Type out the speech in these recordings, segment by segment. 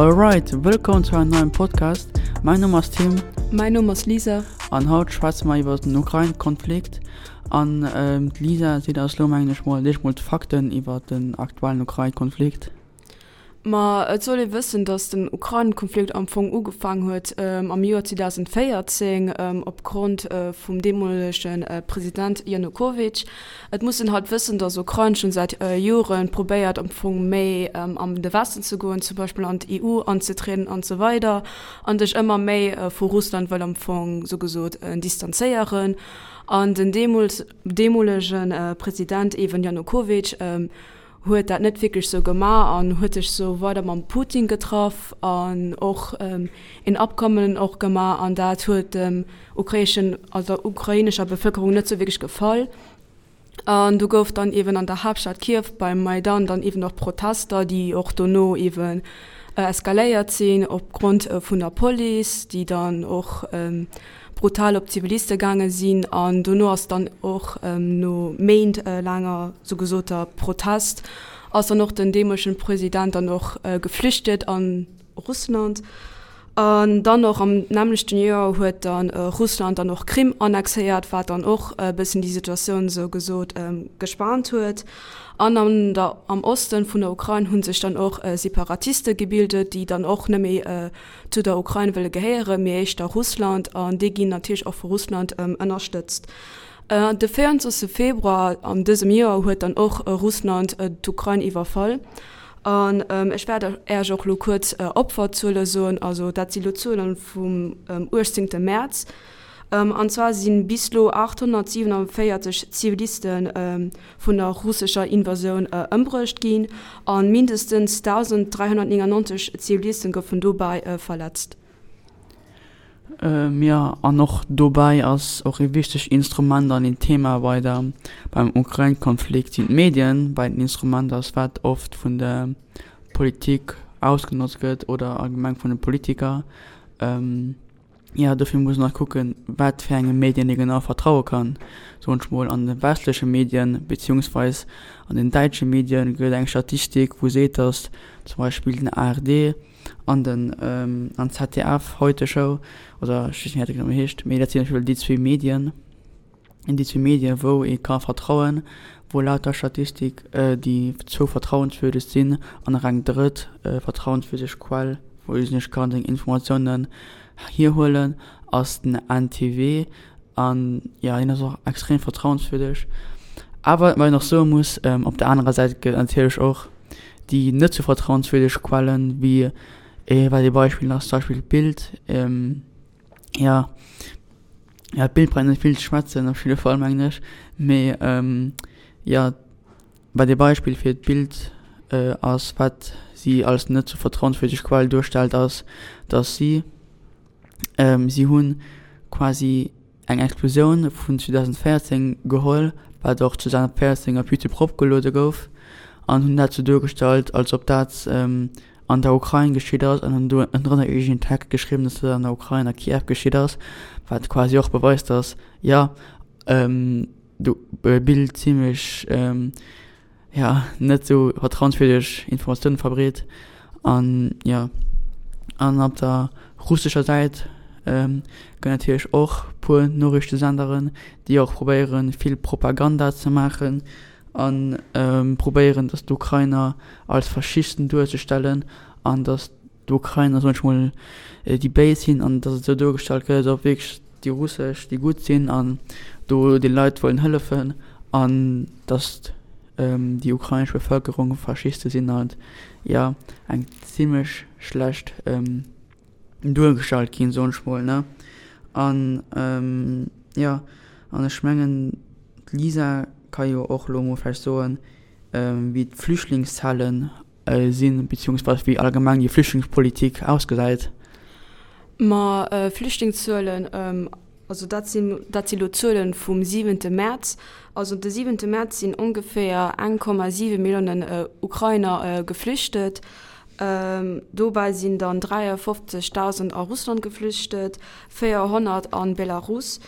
Alright, wëllkomm zu engem neien Podcast. Mäin Numm ass Tim. Mäin Numm ass Lisa. An haut schwätze mer iwwer den Ukrain-Konflikt. An d'Lisa seet eis lo mengen ech mol eréischt mol d'Fakten iwwer den aktuellen Ukrain-Konflikt. Ma et soll ee wëssen, datt den Ukrain-Konflikt am Fong ugefaang huet am Joer 2014 opgrond vum deemolege President Janukowytsch. Et muss een halt wëssen, datt Ukrain schonn säit Jore probéiert am Fong méi an de Westen ze goen, zum Beispill an d'EU anzetrieden an esou weider an sech ëmmer méi vu Russland wëll am Fong sou gesot distanzéieren. An den deemools deemolege President eeben Janukowytsch huet dat net wierklech sou gemaach an huet sech sou weider mam Putin getraff an och een Abkommen och gemaach an dat huet dem ukrainischen, also der ukrainescher Bevëlkerung net sou wierklech gefall. An do gouf dann eeben an der Haaptstad Kiew beim Maidan dann eeben och Protester, déi och dono eeben eskaléiert sinn opgrond vun der Police, déi dann och brutal op d'Ziviliste gaange sinn an dono ass dann och no Méint laanger sou gesoter Protest ass dann och den deemolegen President dann och geflüchtet an Russland. An dann och am nämmlechten Joer huet dann Russland dann och Krim annexéiert, wat dann och e bëssen déi Situatioun sou gesot gespaant huet. An an der am Osten vun der Ukrain hu sech dann och Separatiste gebildet, déi dann och net méi zu der Ukrain wëlle gehéieren, mee éischter Russland, an déi ginn natierlech och vu Russland ënnerstëtzt. De 24 Februar an dësem Joer huet dann och Russland d'Ukrain iwwerfall. An ech wäert Äech och elo kuerz Opferzuele soen, also dat si lo Zuele vum 18 Mäerz. An zwar si bis elo 847 Ziviliste vun der russescher Invasioun ëmbruecht ginn a mindestens 1.399 Zivilisten goufen dobäi verletzt. Jo, an och dobäi ass och ee wichtegt Instrument an een Thema bei der, beim Ukrain-Konflikt sinn d'Medien, well et en Instrument ass, wat oft vun der Politik ausgenotzt gëtt oder allgemeng vun de Politiker. Jo, dofir muss een och kucken, wat fir enge Medien ee genau vertraue kann. Soen ech mol, an de westleche Medien, beziehungsweis an den däitsche Medien gëtt et eng Statistik, wou seet, datt zum Beispill den ARD an den an d'ZDF, Heute Show, oder ech weess net, wéi dat genau heescht, mee dat sinn op jidde Fall déi zwee Medien, déi zwee Medien, wou ee ka vertrauen, wou laut der Statistik déi zwou vertrauenswürdeg sinn an nach eng drëtt vertrauenswürdeg Quell, wou ee sech kann seng Informatiounen hierhuelen, ass den NTW. An jo, hien ass och extrem vertrauenswürdeg. Awer wat een och soe muss, op der anerer Säit gëtt et natierlech och déi net sou vertrauenswürdeg Quellen, wéi wat ee Beispill ass zum Beispill d'Bild. Jo, ja d'Bild brauch net vill ze schwätzen op jidde Fall mengen ech, mee jo wat ee Beispill fir d'Bild ass, wat si als net sou vertrauenswürdeg Quell duerstellt ass, datt si si hunn quasi eng Explosioun vun 2014 geholl, wat och 2014 op Youtube eropgeluede gouf an hunn dat sou duergestallt als ob dat an der Ukrain geschitt ass an hunn do ënnendrënner iergendeen Text geschriwwen, dass dat an der Ukrain a Kiew geschitt ass, wat quasi och beweist, dass jo d'Bild zimmlech jo net esou vertrauenswierdeg Informatiounen verbreet an jo an op der russescher Säit gëtt natierlech och puer Noriichtesenderen, déi och probéieren vill Propaganda ze maachen an probéieren, datt d'Ukrainer als Faschisten duerzestellen an datt d'Ukrainer, soen ech mol, déi Béis sinn an datt et esou duergestallt gëtt, als ob wierklech déi Russesch déi Gutt sinn an do de Leit wëllen hëllefen an datt déi ukrainesch Bevëlkerung Faschiste sinn an jo eng zimmlech schlecht duergestallt ginn, soen ech mol, ne. An jo, an ech mengen d'Lisa ka jo och elo mol vläicht soen, wéi d'Flüchtlingszahlen sinn, beziehungsweise wéi allgemeng déi Flüchtlingspolitik ausgesäit. Ma Flüchtlingszuelen, also dat sinn, dat si lo Zuelen vum siwente Mäerz. Also de siwente Mäerz sinn ongeféier 1,7 Milliounen Ukrainer geflüchtet. Dobäi sinn dann 53.000 a Russland geflüchtet, 400 a Belarus.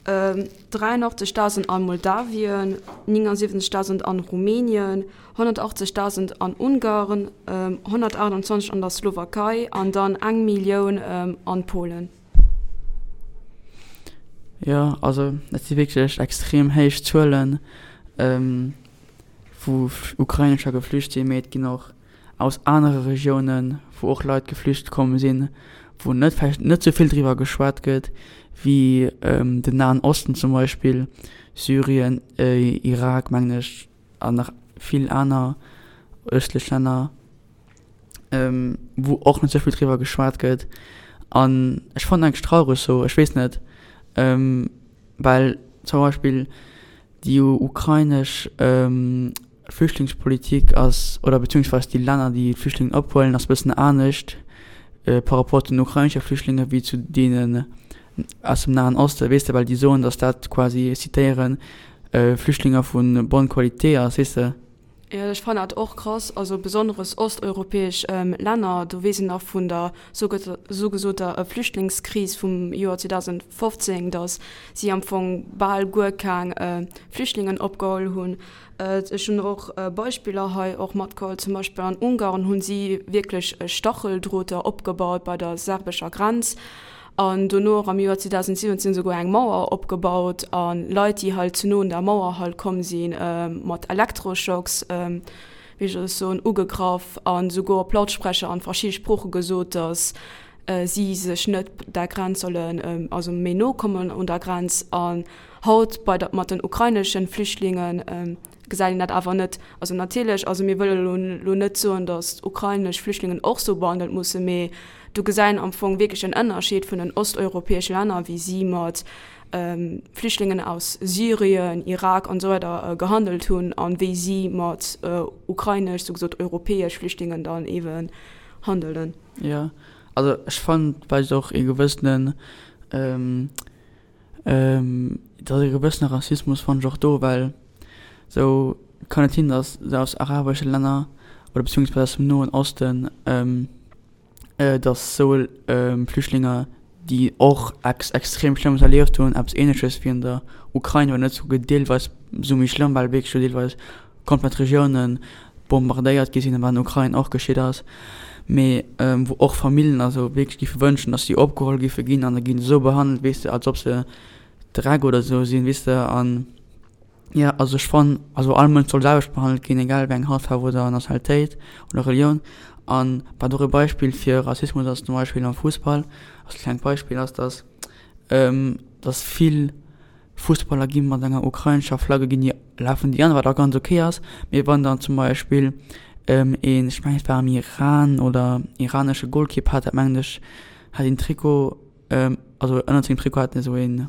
83.000 a Moldawien, 79.000 an Rumänien, 180.000 an Ungarn, 128 an der Slowakei an dann eng Millioun an Polen. Jo, also dat si wierklech extrem héich Zuelen, wou Ukrainescher geflücht sinn, mee et ginn och aus anere Regiounen, wou och Leit geflücht komm sinn, wou net vläicht net sou vill driwwer geschwat gëtt, wéi den Nahen Osten zum Beispill, Syrien, Irak mengen ech an nach vill aner ëstlech Länner, wou och net sou vill driwwer geschwat gëtt. An ech fannen eigentlech traureg sou, ech weess net, well zum Beispill déi ukrainesch Flüchtlingspolitik ass, oder beziehungsweise déi Länner, déi d'Flüchtlingen ophuelen, ass e bëssen anescht par rapport zu den ukrainesche Flüchtlinge wéi zu deenen aus dem Nahen Osten, weess de, well déi soen, datt dat quasi, ech zitéieren, Flüchtlinge vu bonne qualité ass, weess de. Jo, ech fannen dat och krass, also besonneres osteuropäesch Länner, do weess een nach vun der sougesoter Flüchtlingskris vum Joer 2015, datt si am Fong bal guer keng Flüchtlingen opgeholl hunn. Ech hunn och Beispiller hei och matgeholl, zum Beispill an Ungarn hunn si wierklech Stacheldroter opgebaut bei der serbescher Grenz an dono och am Joer 2017 souguer eng Mauer opgebaut a Leit, déi halt ze no un der Mauer halt komm sinn, mat Elektroschocks, wéi soll ech soen, ugegraff a souguer op Lautsprecher an verschidde Sprooche gesot, datt si sech net der Grenz sollen, also méi no kommen un der Grenz. An haut bei der, mat den ukraineschen Flüchtlingen gesäit een dat awer net. Also natierlech, also mir wëlle lo lo net soen, datt ukrainesch Flüchtlingen och sou behandelt mussen, mee do gesäit een am Fong wierklech en Ënnerscheed vun den osteuropäesche Länner, wéi si mat Flüchtlingen aus Syrien, Irak an esou weider gehandelt hunn an wéi si mat ukrainesch, sou gesot europäesch Flüchtlingen dann eeben handelen. Jo, also ech fannen et weist och ee gewëssenen, Et ass e gewëssene Rassismus fannen ech och do, well sou kann et sinn, datt se aus arabesche Länner oder beziehungsweise aus dem Noen Osten, datt sou Flüchtlinge, déi och ex extrem Schlëmmes erlieft hunn, eppes Ähnleches wéi an der Ukrain, wann net souguer deelweis sou méi schlëmm, well wierklech do deelweis komplett Regiounen bombardéiert gi sinn, wat an der Ukrain och geschitt ass, mee wou och Famillen a sou wierklech géife wënschen, datt si opgeholl géife ginn an da gi se esou behandelt, weess de, als ob se Dreck oder esou sinn, weess de. An jo, also ech fannen, also all Mënsch soll selwecht behandelt ginn, egal wéi eng Hautfaarf oder Nationalitéit oder Relioun. An wat och e Beispill fir Rassismus ass, zum Beispill am Fussball, als klengt Beispill, ass, datt datt vill Fussballer gi mat enger ukrainescher Flagge ginn déi lafen déi an, wat och ganz ok ass, mee wann dann zum Beispill een, ech mengen et war am Iran oder iranesche Golkipp hat dat mengen ech, hat een Trikot, also ënnert sengem Trikot hat en esou een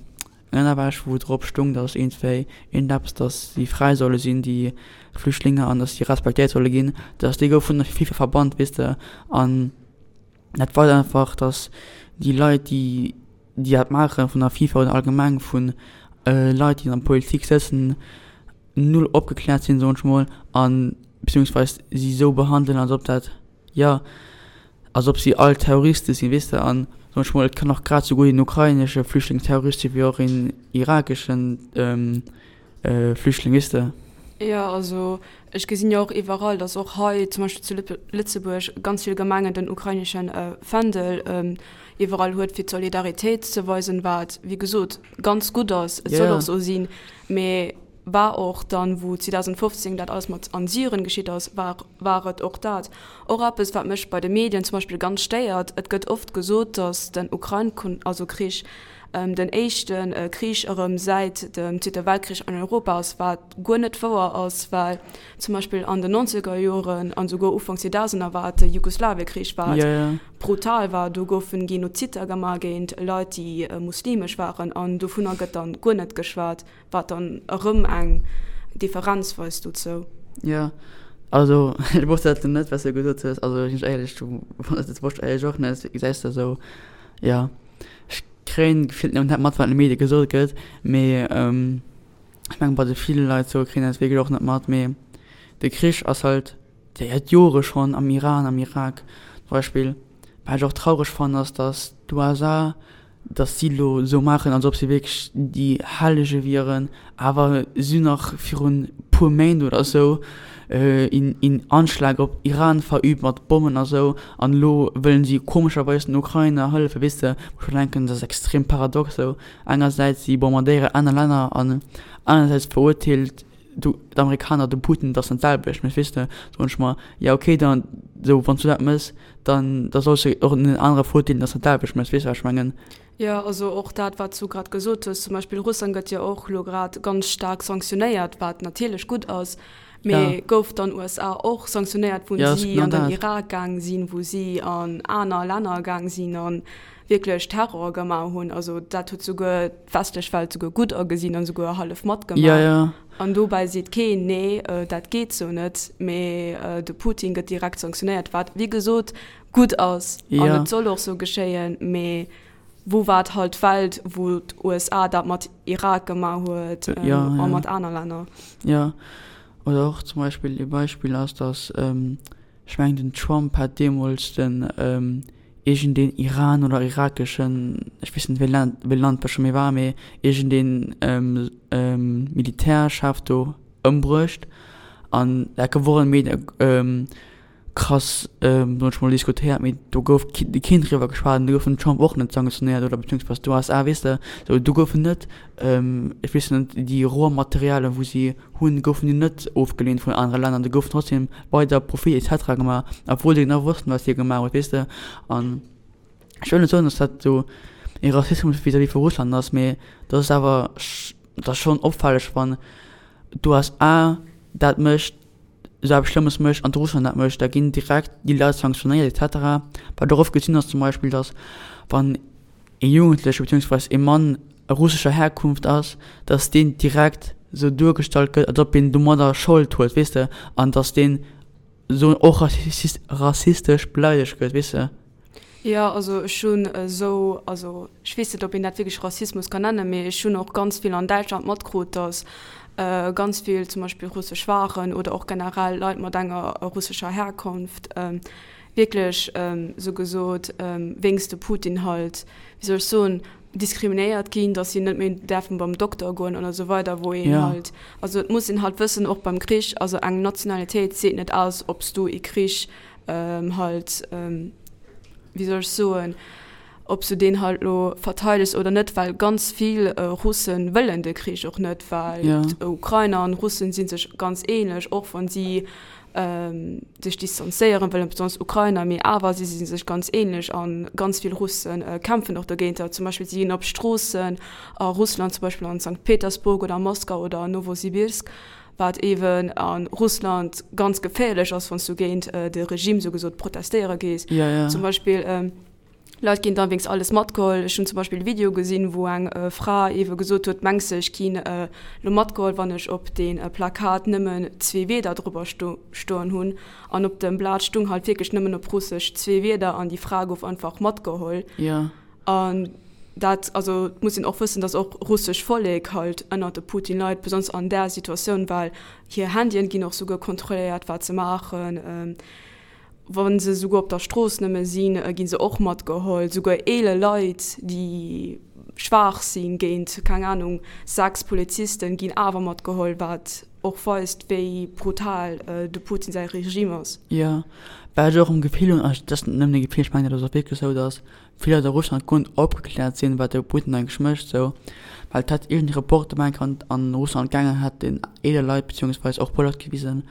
Ënnerwäsch wou drop stung, datt iergendwéi iergendeppes, datt si fräi solle sinn déi Flüchtlinge an datt si respektéiert solle ginn, datt déi gouf vun der FIFA verbannt, weess de an. Dat weist einfach, datt déi Leit, déi déi dat maachen, vun der FIFA oder allgemeng vu Leit, déi an der Politik sëtzen, null opgekläert sinn, soen ech mol, a beziehungsweis si esou behandelen, als ob dat, jo, als ob si all Terroriste sinn, weess de. An, soen ech mol, et kann och grad esou gutt een ukrainesche Flüchtling Terrorist sinn, wéi och een irakeschen Flüchtling, weess de. Jo, also ech gesinn jo och iwwerall, datt och hei zum Beispill zu Lëtzebuerg ganz vill Gemengen den ukrainesche Fändel iwwerall huet, fir d'Solidaritéit ze weisen, wat wéi gesot ganz gutt ass, et soll och esou sinn. Mee war och dann, wou 2015 dat alles mat an Syrien geschitt ass, war war et och dat. Och eppes, wat mech bei de Medien zum Beispill ganz stéiert, et gëtt oft gesot, datt den Ukrain, also Krich, den éischte Krich erëm säit dem Zweete Weltkrich an Europa ass, wat guer net wouer ass, well zum Beispill an den nonzeger Joren an esouguer Ufank Zweetausener war et de Jugoslawiekrich, wat brutal war. Do goufen Genozidder gemaach géint Leit, déi muslimesch waren an dovunner gëtt dann guer net geschwat, wat dann erëm eng Differenz weist dozou. Jo, also ech wosst dat net, wat s de gesot hues. Also sinn ech éierlech, dat wosst ech éierlech och net. Gesäis de esou, jo. Ech kréien gefillt nëmmen dat mat, wat an de Medie gesot gëtt, mee ech mengen bei de ville Leit sou kréien dat wierklech och net mat. Mee de Krich ass halt säit Jore schonn am Iran, am Irak zum Beispill. Wat ech och traureg fannen ass, datt d'USA. Dass si elo esou maachen, als ob si wierklech déi Hellege wieren, awer si hunn nach virun puer Méint oder esou een Anschlag op Iran verübt mat Bommen a sou, an elo wëllen si komescherweis den Ukrainer hëllefen, weess de, wou ech mer denken, dat ass extrem paradox esou, engersäits si bombardéieren aner Länner an anersäits verurteelt d'Amerikaner de Putin, dat ass net d'selwecht, mee weess de, soen ech mer, jo okay, dann esou wann s du dat méchs, dann da solls de och en anere verurteelen, dass dat d'selwecht méchs, weess de wat ech mengen? Jo, also och dat wat s du grad gesot hues, zum Beispill Russland gëtt jo och elo grad ganz staark sanktionéiert, wat natierlech gutt ass, mee gouf dann USA och sanktionéiert, wou si an den Irak gaang sinn, wou si an aner Länner gaang sinn an wierklech Terror gemaach hunn. Also dat huet souguer d'westlech Welt souguer gutt agesinn an souguer hallef matgemaach. Ja, ja. An dobäi seet keen, nee, dat geet sou net, mee de Putin gëtt direkt sanktionéiert, wat wéi gesot gutt ass an et soll och sou geschéien. Mee wou war halt d'Welt, wou d'USA dat mat Irak gemaach huet a mat aner Länner? Jo, oder och zum Beispill ee Beispill ass, datt, ech mengen den Trump hat deemools den iergendeen Iran oder irakeschen, ech weess net wéi Land, wéi Land dat scho méi war, mee iergendeen Militärchef do ëmbruecht an dat gouf och an de Medie krass, soen ech mol, diskutéiert, mee do gouf keen driwwer geschwat an do gouf den Trump och net sanktionéiert oder beziehungsweise d'USA, weess de, sou do goufen net, ech weess net, déi Rohmaterialien wou si hunn, goufen déi net ofgeleent vun anere Länner, do goufen trotzdem weider Profit et cetera gemaach, obwuel se genau wossten, wat hie gemaach huet, weess de. An ech wëll net soen, datt dat esou ee Rassismus vis-à-vis vu Russland ass, mee dat ass awer, dat ass schonn opfälleg, wann d'USA dat mécht, esou eppes Schlëmmes mécht an d'Russland dat mécht, da ginn direkt déi Leit sanktionéiert et cetera. Wat och oft gesinn ass zum Beispill, datt wann ee Jugendleche beziehungsweise ee Mann russescher Herkunft ass, datt deen direkt esou duergestallt gëtt, als ob een domadder Schold huet, weess de, an datt deen esou och rassistesch beleidegt gëtt, weess de. Jo, also ech hunn esou, also ech weess net, ob een dat wierklech Rassismus kann nennen, mee ech hunn och ganz vill an Däitschland matkrut, datt ganz vill zum Beispill russesch Waren oder och generell Leit mat enger russescher Herkunft wierklech esou gesot wéinst de Putin halt, wéi soll ech soen, diskriminéiert ginn, datt si net méi däerfen beim Dokter goen an esou weider, wou een halt, also et muss een halt wëssen, och beim Krich, also eng Nationalitéit seet net aus, ob s du ee Krich halt, wéi soll ech soen, ob s du deen halt elo verteidegs oder net, well ganz vill Russen wëllen de Krich och net, well d'Ukrainer an Russen si sech ganz ähnlech, och wann si sech distanzéieren wëllen, besonnesch Ukrainer, mee awer si si sech ganz ähnlech a ganz vill Russe kämpfen och dogéinter. Zum Beispill si ginn op Stroossen a Russland, zum Beispill an Sankt Petersburg oder Moskau oder Nowosibirsk, wat eeben a Russland ganz geféierlech ass, wann s du géint de Regime sou gesot protestéiere gees. Zum Beispill. Leit ginn dann wéinst alles matgeholl. Ech hunn zum Beispill e Video gesinn, wou eng Fra eebe gesot huet, Mengs de, ech ginn elo matgeholl, wann ech op dee Plakat nëmmen zwee Wierder driwwer stoen hunn? An op dem Blat stung halt wierklech nëmmen op Russesch zwee Wierder an déi Fra gouf einfach matgeholl. An dat, also et muss een och wëssen, datt och russesch Vollek halt ënnert de Putin leit, besonnesch an där Situatioun, well hir Handyen ginn och souguer kontrolléiert, wat se maachen. Wa se souguer op der Strooss nëmme sinn, gi se och matgeholl. Souguer eeler Leit, déi schwaach sinn, géint, keng Anung, 6 Polizisten, ginn awer matgeholl, wat och weist, wéi brutal de Putin säi Regime ass. Jo, wat ech och am Gefill hunn, dat ass net nëmmen e Gefill, ech mengen dat ass och wierklech esou, datt vill Leit a Russland guer net opgekläert sinn, wat de Putin eigentlech mécht esou, well et hätt iergend ee Reporter meng ech an an Russland gaangen, hätt den eeler Leit beziehungsweis och puer Leit gewisen,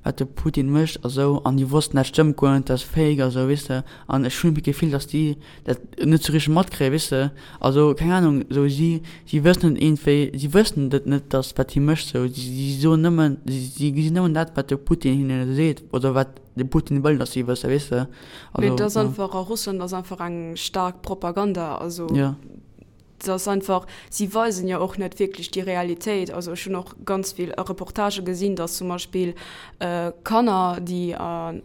wat de Putin mécht a sou, an déi wossten dat stëmmt guer net, dat ass fake a sou, weess de, an ech hunn d'Gefill, datt déi dat net sou richteg matkréien, weess de, also keng Ahnung, sou si si wëssen net iergendwéi, si wëssen et net, datt wat hie mécht sou, si si soen nëmmen, si gesinn nëmmen dat wat de Putin hinne seet oder wat. De Putin wëll, dass si wësse, weess de. Also, Mee et ass einfach, a Russland ass einfach eng staark Propaganda. Also, ja. Et ass einfach, si weisen jo och net wierklech déi Realitéit. Also ech hunn och ganz vill Reportagë gesinn, dass zum Beispill Kanner, déi,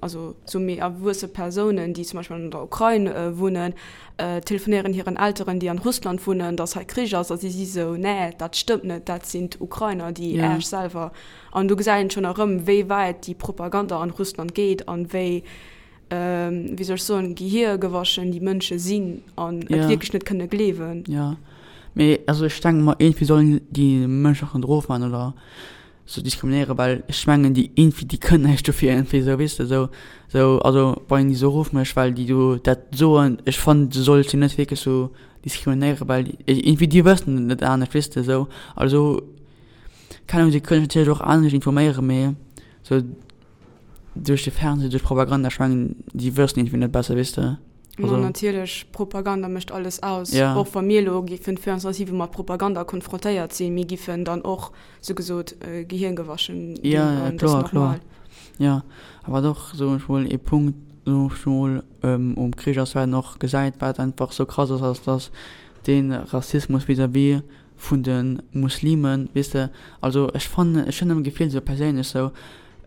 also sou méi erwuesse Persounen, déi zum Beispill an der Ukrain wunnen, telefonéieren hiren Elteren, déi an Russland wunnen, dass hei Krich ass. A si si sou, Nee, dat stëmmt net, dat sinn d'Ukrainer, déi Äech selwer. An do gesäit een schonn erëm, wéi wäit déi Propaganda an Russland geet an wéi. wéi soll ech soen, gehiergewaschen déi Mënsche sinn an et wierklech net kënne gleewen. Jo, mee also ech denke mer, iergendwéi sollen déi Mënschen och net erofman oder sou diskriminéieren, well ech mengen déi iergendwéi, déi kënnen näischt dofir iergendwéi sou, weess de, sou, sou, also wann een déi sou erofmécht, well déi do dat soen, ech fannen du solls déi net wierklech sou diskriminéieren, well iergendwéi déi wëssen et net anescht, weess de, sou, also keng Ahnung, si kënnen sech natierlech och anescht informéieren, mee sou duerch de Fernseh, duerch Propaganda, ech mengen déi wëssen iergendwéi net besser, weess de. Ma natierlech, Propaganda mécht alles aus. Ja. Och wa mir elo giffen 24/7 mat Propaganda konfrontéiert sinn, mir giffen dann och, sou gesot, gehirngewaschen ginn. Ja, ja, kloer, kloer. Ja, a wat och, soen ech mol, ee Punkt, soen ech mol, um Krich ass, wat een och gesäit, wat einfach sou krass ass, ass, dass dee Rassismus vis-à-vis vun de Muslimen, weess de, also ech fannen, ech hunn am Gefill sou perséinlech sou,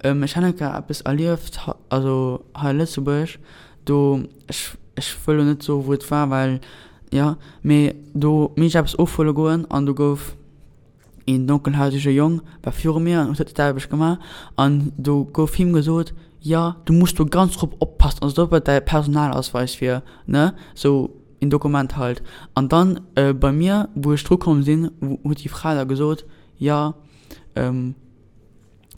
ech han enker eppes erlieft, also hei a Lëtzebuerg, do, ech, ech wëll lo net soe wou et war, well, jo, mee do minn ech eppes ofhuele goen an do gouf een donkelhaarege Jong war viru mir an huet dat selwecht gemaach an do gouf him gesot, jo, du muss do ganz drop oppassen, also ob et däi Personalausweis wier, ne, sou. een Dokument halt. An dann bei mir, wou ech dru komm sinn, huet déi Fra da gesot, jo,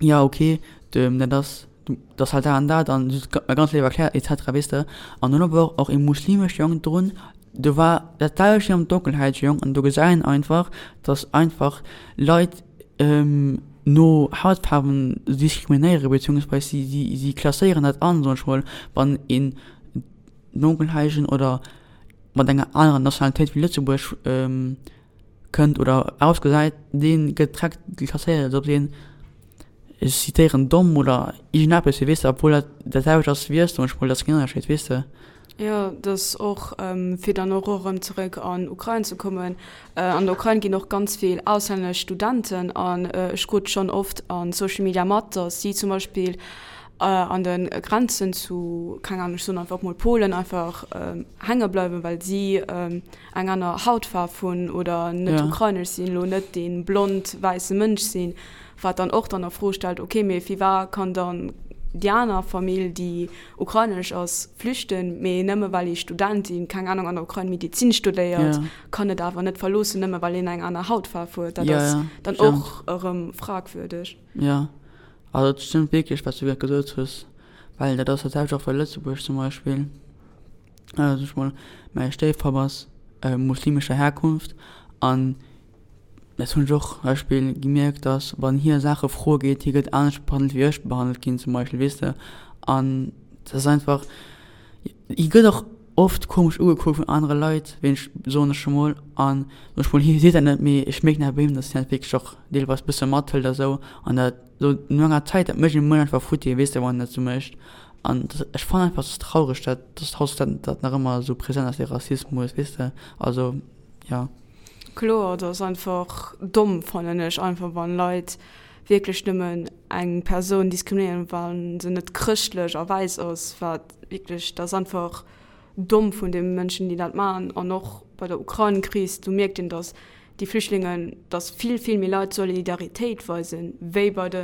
jo ok, dat ass, dat ass halt dat an dat an si huet mer ganz léif erkläert et cetera, weess de. An dunn war och ee muslimesche Jong drun, do war dat selwecht wéi am donkelhäitege Jong an do gesäit een einfach, datt einfach Leit no Hautfaarwen diskriminéieren, beziehungsweise si si klasséieren dat an, soen ech mol, wann een Donkelhaigen oder mat enger anerer Nationalitéit wéi Lëtzebuerg kënnt oder ausgesäit, dee gëtt direkt klasséiert, als ob deen, ech zitéieren, domm oder iergendeppes wier, weess de, obwuel dat dat selwecht ass wéi ech zum Beispill, dat ass keen Ënnerscheed, weess de. Jo, dat ass och, fir dann och erëm zeréck an Ukrain ze kommen, an der Ukrain ginn och ganz vill auslännesch Studenten an ech krut schonn oft a Social Media mat, datt si zum Beispill an de Grenzen zu, keng Ahnung, ech soen einfach mol Polen, einfach hänge bleiwen, well si eng aner Hautfaarf hunn oder net ukrainesch sinn, elo net dee blond wäisse Mënsch sinn, wat dann och dann a Fro stellt, okay, mee firwat kann dann déi aner Famill, déi ukrainesch ass, flüchten, mee nëmme well ee Student, deen, keng Ahnung, an der Ukrain Medizin studéiert, kann et awer net verloossen, nëmme well een eng aner Hautfaarf huet. Dat ass dann och erëm fragwürdeg. Jo, Also et stëmmt wierklech wat s du grad gesot hues, well dat ass dat selwecht och bei Lëtzebuerg zum Beispill. Also ech mol mäi Stéifpapp ass muslimescher Herkunft an dat hunn ech och zum Beispill gemierkt, datt wann hie Saache froe geet, hie gëtt anescht behandelt wéi ech behandelt ginn zum Beispill, weess de. An dat ass einfach, hie gëtt och oft komesch ugekuckt vun anere Leit, wéi ech, soen ech emol. An soen ech mol, hie seet dat net, mee ech mierken awer bei him, datt hien dat wierklech och deelweis bësse mathëlt a sou an dat sou no enger Zäit, dat mécht een emol einfach futti, weess de, wann en dat sou mécht. An ech fannen einfach, et ass traureg, dat dass haut dat dat nach ëmmer esou present ass, dee Rassismus, weess de. Also, jo. Kloer, dat ass einfach domm, fannen ech einfach, wann Leit wierklech nëmmen eng Persoun diskriminéieren, wa se net chrëschtlech a wäiss ass, wat wierklech, dat ass einfach domm vun de Mënschen, déi dat maachen. An och bei der Ukrain-Kris, do mierkt een, datt déi Flüchtlingen, datt vill, vill méi Leit Solidaritéit weisen, wéi bei de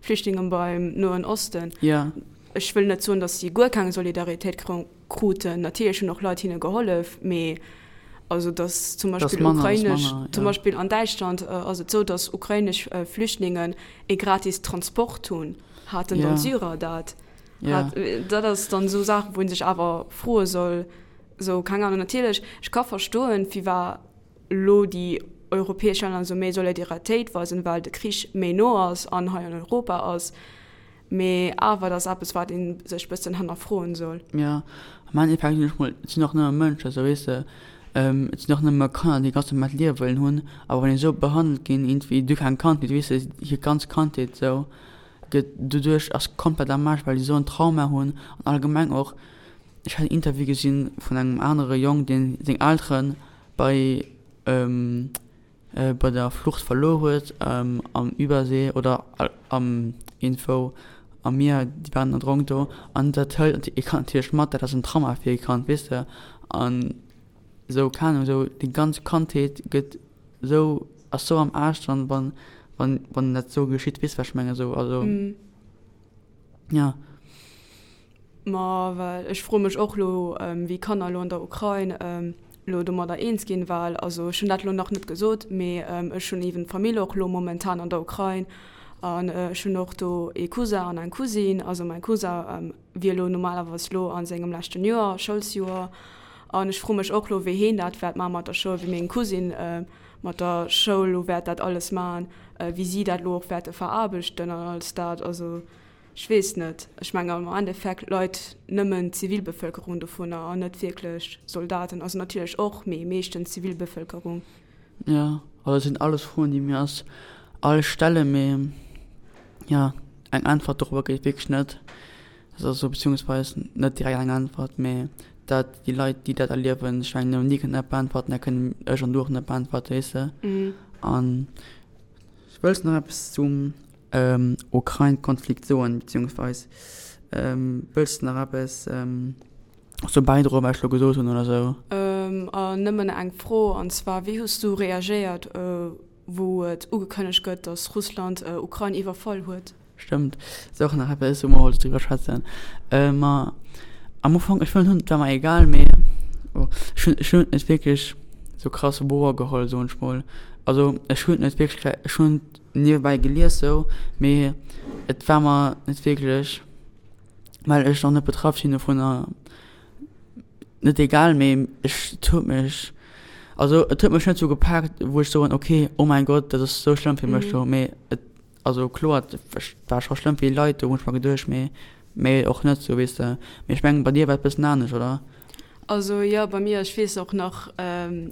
Flüchtlingen beim Noen Osten. Ech wëll net soen, datt si guer keng Solidaritéit kruten. Natierlech hunn och Leit hinne gehollef, mee also datt zum Beispill ukrainesch, zum Beispill an Däitschland ass et sou, datt ukrainesch Flüchtlingen ee gratis Transport hunn. Haten dann d'Syrer dat? Hat, dat ass dann esou Saachen, wou ee sech awer froe soll, sou keng Ahnung. Natierlech, ech ka verstoen, firwat elo déi europäesch Länner esou méi Solidaritéit weisen, well de Krich méi no ass an hei an Europa ass. Mee awer, dat ass eppes, wat ee sech bëssen hannerfroen soll. Jo, am Endeffekt sinn ech mol, et sinn och nëmme Mënschen, esou weess de, et sinn och nëmme Kanner, déi ganz normaalt Liewe wëllen hunn. A wann déi esou behandelt ginn, iergendwéi duerch eng Kandheet, weess de, hir ganz Kandheet esou gëtt doduerch ass komplett am Aarsch, well déi esou en Trauma hunn. An allgemeng och, ech hat en Interview gesinn vun engem anere Jong, deen seng Eltere bei bei der Flucht verluer huet am Übersee oder am iergendwou am Mier, déi waren erdronk do an dat hëlt ee Kand natierlech mat, dat ass en Trauma fir ee Kand, weess de. An esou, keng Ahnung, esou déi ganz Kandheet gëtt esou, ass esou am Aarsch dann, wann, wann, wann dat esou geschitt, weess de wat ech mengen esou, also ja. Ma well ech froe mech och elo, wéi Kanner elo an der Ukrain elo domadder eens ginn, well also ech hunn dat elo nach net gesot, mee ech hunn eeben Famill och elo momentan an der Ukrain an ech hunn och do ee Cousin an eng Cousine. Also mäi Cousin wier elo normalerweis elo a sengem leschten Joer, Schoulsjoer, an ech froe mech och elo, wéi heen dat wäert maache mat der Schoul, wéi meng Cousine mat der Schoul elo wäert dat alles maachen, wéi si dat elo och wäerte veraarbechten an alles dat. Also Ech weess net. Ech mengen am Endeffekt leit nëmmen d'Zivilbevëlkerung dovunner an net wierklech Soldaten. Also natierlech och, mee meeschtens d'Zivilbevëlkerung. Jo, also dat sinn alles Froen, déi mir eis all stellen, mee jo, eng Äntwert dorobber gëtt et wierklech net. Also beziehungsweis net direkt eng Äntwert, mee dat déi Leit, déi dat erliewen, ech mengen, déi kënnen dat beäntwerten, dat kënnen ech an du och net beäntwerten, weess de. An wëlls de nach eppes zum Ukrain-Konflikt soen, beziehungsweis wëlls de nach eppes dozou bäidroen, wat ech elo gesot hunn oder sou? Nëmmen eng Fro, an zwar, Wéi hues du reagéiert, wou et ugekënnegt gëtt, datt Russland Ukrain iwwerfall huet? Stëmmt, ass och nach eppes, wou mer wollten driwwer schwätzen. Ma am Ufank, ech hunn, et war mer egal, mee ech hunn, ech hunn et net wierklech sou krass wouer geholl, soen ech mol. Also ech hunn et net wierklech, ech hunn niewebäi gelies sou, mee et war mer net wierklech, well ech nach net betraff sinn dovunner, net egal, mee ech, et huet mech, also et huet mech net sou gepaakt, wou ech soen, ok, oh mäin Gott, dat ass sou schlëmm fir mech do, mee et, also kloer, et war scho schlëmm fir déi Leit do, hunn ech mer geduecht, mee Mee och net sou, weess de. Mee ech mengen, bei dir war et bëssen anescht, oder? Also jo, bei mir, ech weess och nach,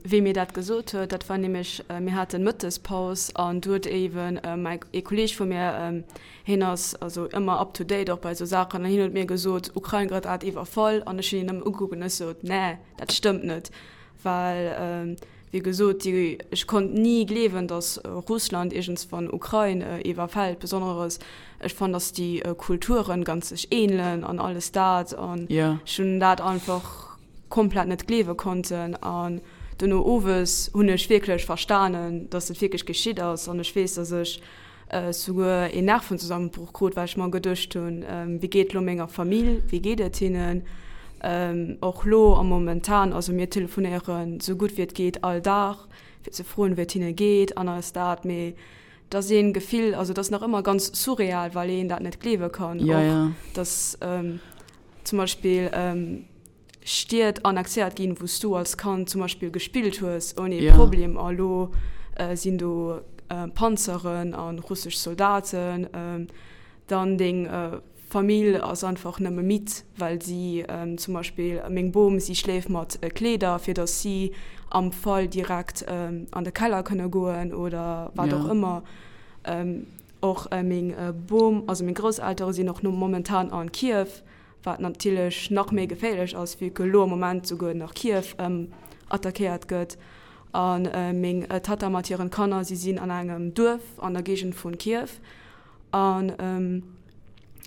wee mir dat gesot huet. Dat war nämlech, mir haten Mëttespaus an du huet eeben mäi, ee Kolleeg vu mir, hien ass also ëmmer up to date och bei esou Saachen, an hien huet mir gesot, Ukrain gëtt grad iwwerfall. An ech hunn hien nëmmen ugekuckt an ech sot, Nee, dat stëmmt net. Well, wéi gesot, déi, ech konnt ni gleewen, datt Russland iergendswann Ukrain iwwerfält, besonneres ech fannen, datt déi Kulturen ganz sech ähnelen an alles dat. An ech hunn dat einfach komplett net gleewe konnten. An duerno owes hunn ech wierklech verstanen, datt et wierklech geschitt ass. An ech weess, datt ech souguer een Nervenzusammenbruch krut, well ech mer geduecht hunn, wéi geet lo menger Famill, wéi geet et hinnen? Och lo am momentan, also mir telefonéieren sou gutt wéi et geet all Dag, fir ze froen, wéi et hinne geet an alles dat, mee et ass een Gefill, also et ass nach ëmmer ganz surreal, well een dat net gleewe kann, och dass zum Beispill, Stied annexéiert ginn, wou s du als Kand zum Beispill gespillt hues ouni ee Problem, a lo sinn do Panzeren a russesch Soldaten. Dann deng Famill ass einfach nëmme midd, well si zum Beispill, meng Bom, si schléift mat Kleeder, fir datt si am Fall direkt an de Keller kënne goen oder wat och ëmmer. Och meng Bom, also meng Grousseltere sinn och momentan an Kiew. wat natierlech nach méi geféierlech ass, vue que elo am Moment souguer nach Kiew attackéiert gëtt. A meng Tatta mat hiren Kanner, si sinn an engem Duerf an der Géigend vu Kiew. An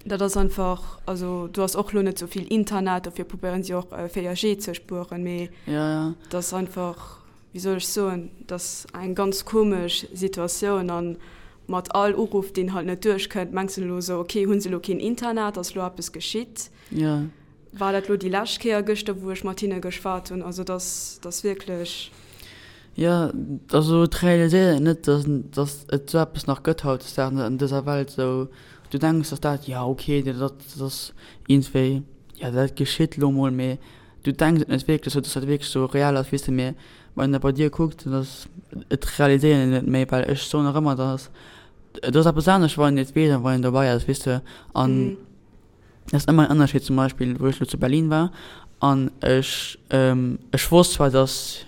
dat ass einfach, also do ass och elo net sou vill Internet, dofir probéieren si och 4G ze spueren, mee dat ass einfach, wéi soll ech soen, dat ass eng ganz komesch Situatioun an mat all Uruff deen halt net duerchkënnt, mengs de elo esou, ok, hunn se elo keen Internet, ass elo eppes geschitt, war dat elo déi lescht Kéier gëschter wou ech mat hinne geschwat hunn, also dat ass, dat ass wierklech. Jo, also et realiséiert een net, dass, dass et esou eppes nach gëtt hautdesdaags an dëser Welt esou. Du denks, dass dat, jo ok, dat ass iergendwéi, jo dat geschitt elo mol, mee Du denks et net wierklech sou, dass dat wierklech sou real ass, weess de, mee wann een dat bei dir kuckt, dann ass et realiséiert een net méi, well ech soen och ëmmer, dass et ass eppes anescht, wann een et weess an wann een dobäi ass, weess de, an et ass ëmmer en Ënnerscheed. Zum Beispill wou ech elo zu Berlin war an ech ech wosst zwar, dass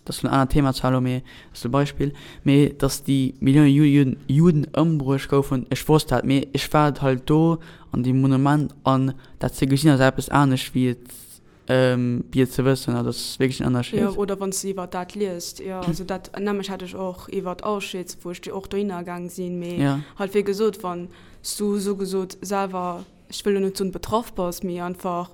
dat ass en anert Thema zwar elo, mee dat ass e Beispill, mee dass déi Millioune Juden Juden ëmbruecht goufen, ech wosst dat, mee ech war halt do an deem Monument an dat ze gesinn ass eppes anescht wéi et wéi et ze wëssen, also dat ass wierklech en Ënnerscheed. Jo, oder wann s de iwwer dat liest, jo, also dat nämlech hat ech och iwwer Auschwitz, wou ech och dohinner gaang sinn, mee halt wéi gesot, wann s du sougesot selwer, ech wëll elo net soen betraff bass, mee einfach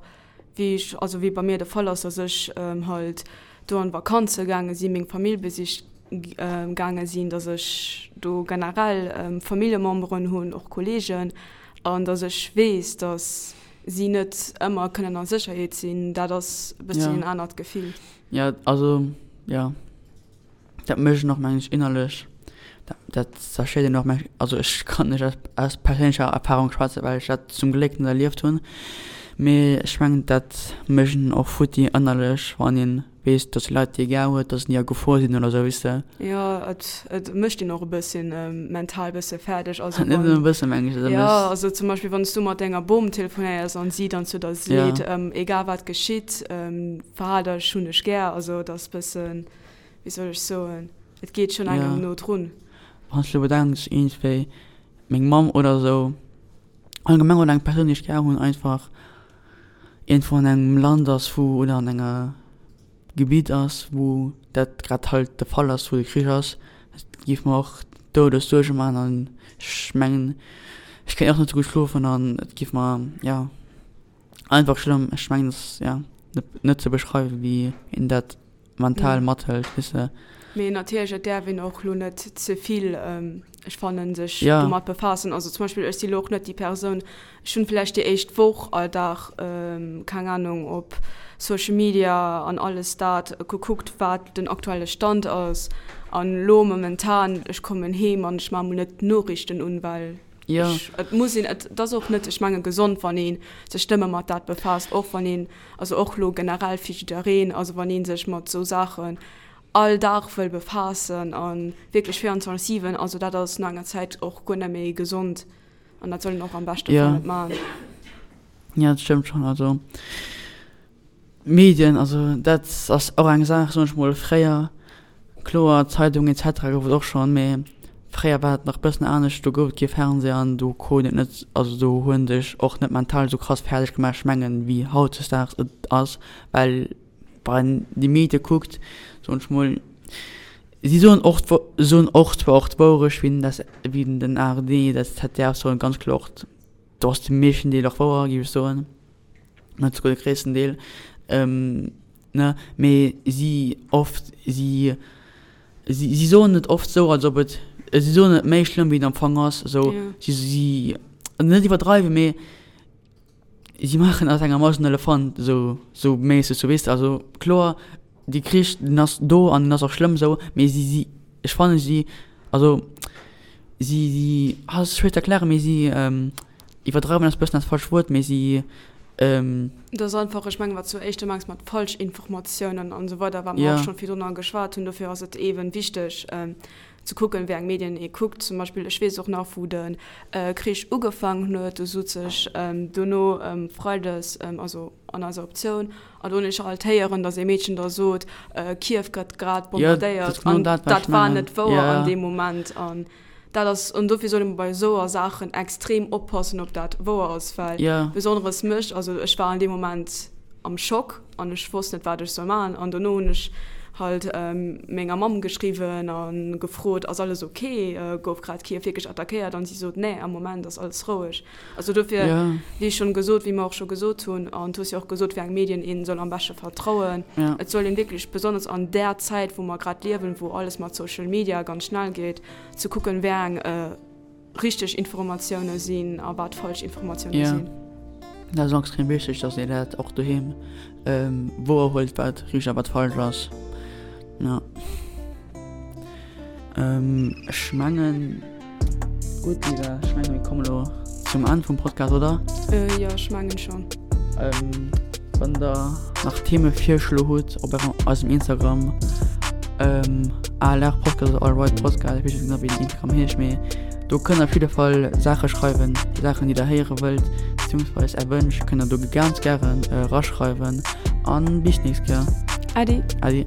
wéi ech, also wéi bei mir de Fall ass, dass ech halt do an Vakanze gaange sinn, meng Famill besicht gaange sinn, dass ech do generell Familljememberen hunn, och Kolleegen, an dass ech weess, dass. si net ëmmer kënnen a Sécherheet sinn, dat ass e bësschen en anert Gefill. Jo, also jo, dat mécht een och mengen ech innerlech, dat dat zerstéiert een och mengen ech, also ech kann net aus aus perséinlecher Erfahrung schwätzen, well ech dat zum Gléck net erlieft hunn, mee ech mengen dat mécht een och futti ënnerlech, wann een weess, dass déi Leit déi ee gär huet, dass déi a Gefor sinn oder sou, weess de. Jo, et et mécht een och e bësschen mental bësse fäerdeg, also Net nëmmen e bëssen, mengen ech, dat Jo, also zum Beispill wann s du mat denger Bom telefonéiers an si dann zu der seet, egal wat geschitt, verhal dech, hunn dech gär, also et ass bëssen, wéi soll ech soen, et geet schonn engem no drun. Wann s du elo bedenks, iergendwéi meng Mamm oder sou, allgemeng oder eng Persoun déi ech gär hunn einfach iergendwou an engem Land ass wou oder an enger Gebitt ass wou dat grad halt de Fall ass, wou de Krich ass, dat géif mer och Doudessuerge maachen an ech mengen ech kéint och net sou gutt schlofen an et géif mer jo einfach schlëmm, ech mengen et ass jo net ze beschreiwen wéi een dat mental mathëlt, weess de. Mee natierlech, et däerf een och lo net ze vill, ech fannen, sech domat befaassen. Also zum Beispill, ech si lo och net déi Persoun, ech hunn vläicht déi éischt Woch all Dag, keng Anung, op Social Media an alles dat gekuckt, wat den aktuelle Stand ass. An lo momentan, ech kommen heem an ech maache mol net d'Noriichten un, well ech, et muss een, et ass och net, ech menge gesond, wann ee sech nëmme mat dat befaasst, och wann een Also och lo generell fir jiddereen, also wann ee sech mat esou Saachen all Dag wëll befaassen a wierklech 24, 7, also dat ass no enger Zäit och guer net méi gesond an dat soll een och am beschte Fall net maachen. Jo, dat stëmmt schonn. Also Medien, also dat ass och eng Saach, soen ech mol, fréier Kloer, Zeitung etc gouf et och schonn, mee fréier war et nach bëssen anescht, do gouf et kee Fernseh an do krut een et net, also do hu en sech och net mental esou krass fäerdeg gemaach, ech mengen, wéi hautdesdaags et ass, well wann een déi Medie kuckt, soen ech mol, si soen och soen och zwar och d'Wourecht, wéi den wéi den ARD, dat ZDF soen ganz kloer och, do ass de meeschten Deel och wouer, géif ech soen. net souguer de gréissten Deel, ne, mee si oft, si, si, si soen et oft sou, als ob et, si soen et méi schlëmm wéi et am Fong ass, sou, si, si, net iwwerdreiwen, mee si maachen aus enger Maus en Elefant, sou, sou méisseg, sou weess de, also kloer, dee Krich, deen ass do an deen ass och schlëmm sou, mee si, si, ech fannen si, also si, si, ah, ass schwéier ze erklären, mee si, Iwwerdreiwen ass bëssen dat falscht Wuert, mee si. Et ass einfach, ech mengen, wat s du éischter mengs mat Falschinformatiounen an esou weider, wat mer och schonn virdrunner geschwat hunn. Dofir ass et eeben wichteg ze kucken, wéi eng Medien ee kuckt. Zum Beispill, ech weess och nach, wou de Krich ugefaangen huet, do sot sech dono freides, also an eiser Optioun, an do hunn ech alt héieren, datt ee Meedchen da sot, Kiew gëtt grad bombardéiert. An dat war net wouer an deem Moment. An Dat ass, an dofir soll ee bei esouer Saachen extrem oppassen, ob dat wouer ass, well yeah. besonneres mech, also ech war an deem Moment am Schock an ech wosst net, wat ech soll maachen. An dono hunn ech halt ähm, menger Mamm geschriwwen a gefrot, ass alles okay, äh, gouf grad Kiew wierklech attackéiert? An si sot, nee, am Moment ass alles roueg. Also dofir, yeah. wéi schonn gesot, wéi mer och scho gesot hunn, an du hues jo och gesot, wéi eng Medien een soll am beschte vertrauen. Yeah. Et soll een wierklech besonnesch an där Zäit, wou mer grad liewen, wou alles mat Social Media ganz schnell geet, ze kucken, wéi eng richteg Informatioune sinn a wat falsch Informatioune sinn. Dat ass extrem wichteg, dass een dat och doheem wouer huelt, wat richteg a wat falsch ass. Jo. Ech mengen, gutt Lisa, ech mengen mir kommen elo zum Enn vum Podcast, oder? Jo, ech mengen schonn. Wann der nach Themevirschlo hutt op eisem Instagram ALR Podcast oder All Right Podcast, ech weess net genau wéi den Instagram heescht, mee do kënnt der op jidde Fall Saache schreiwen, Saachen déi der héiere wëllt, beziehungsweis är Wënsch kënnt der do ganz gären eraschreiwen an bis d'nächst Kéier. Äddi. Äddi.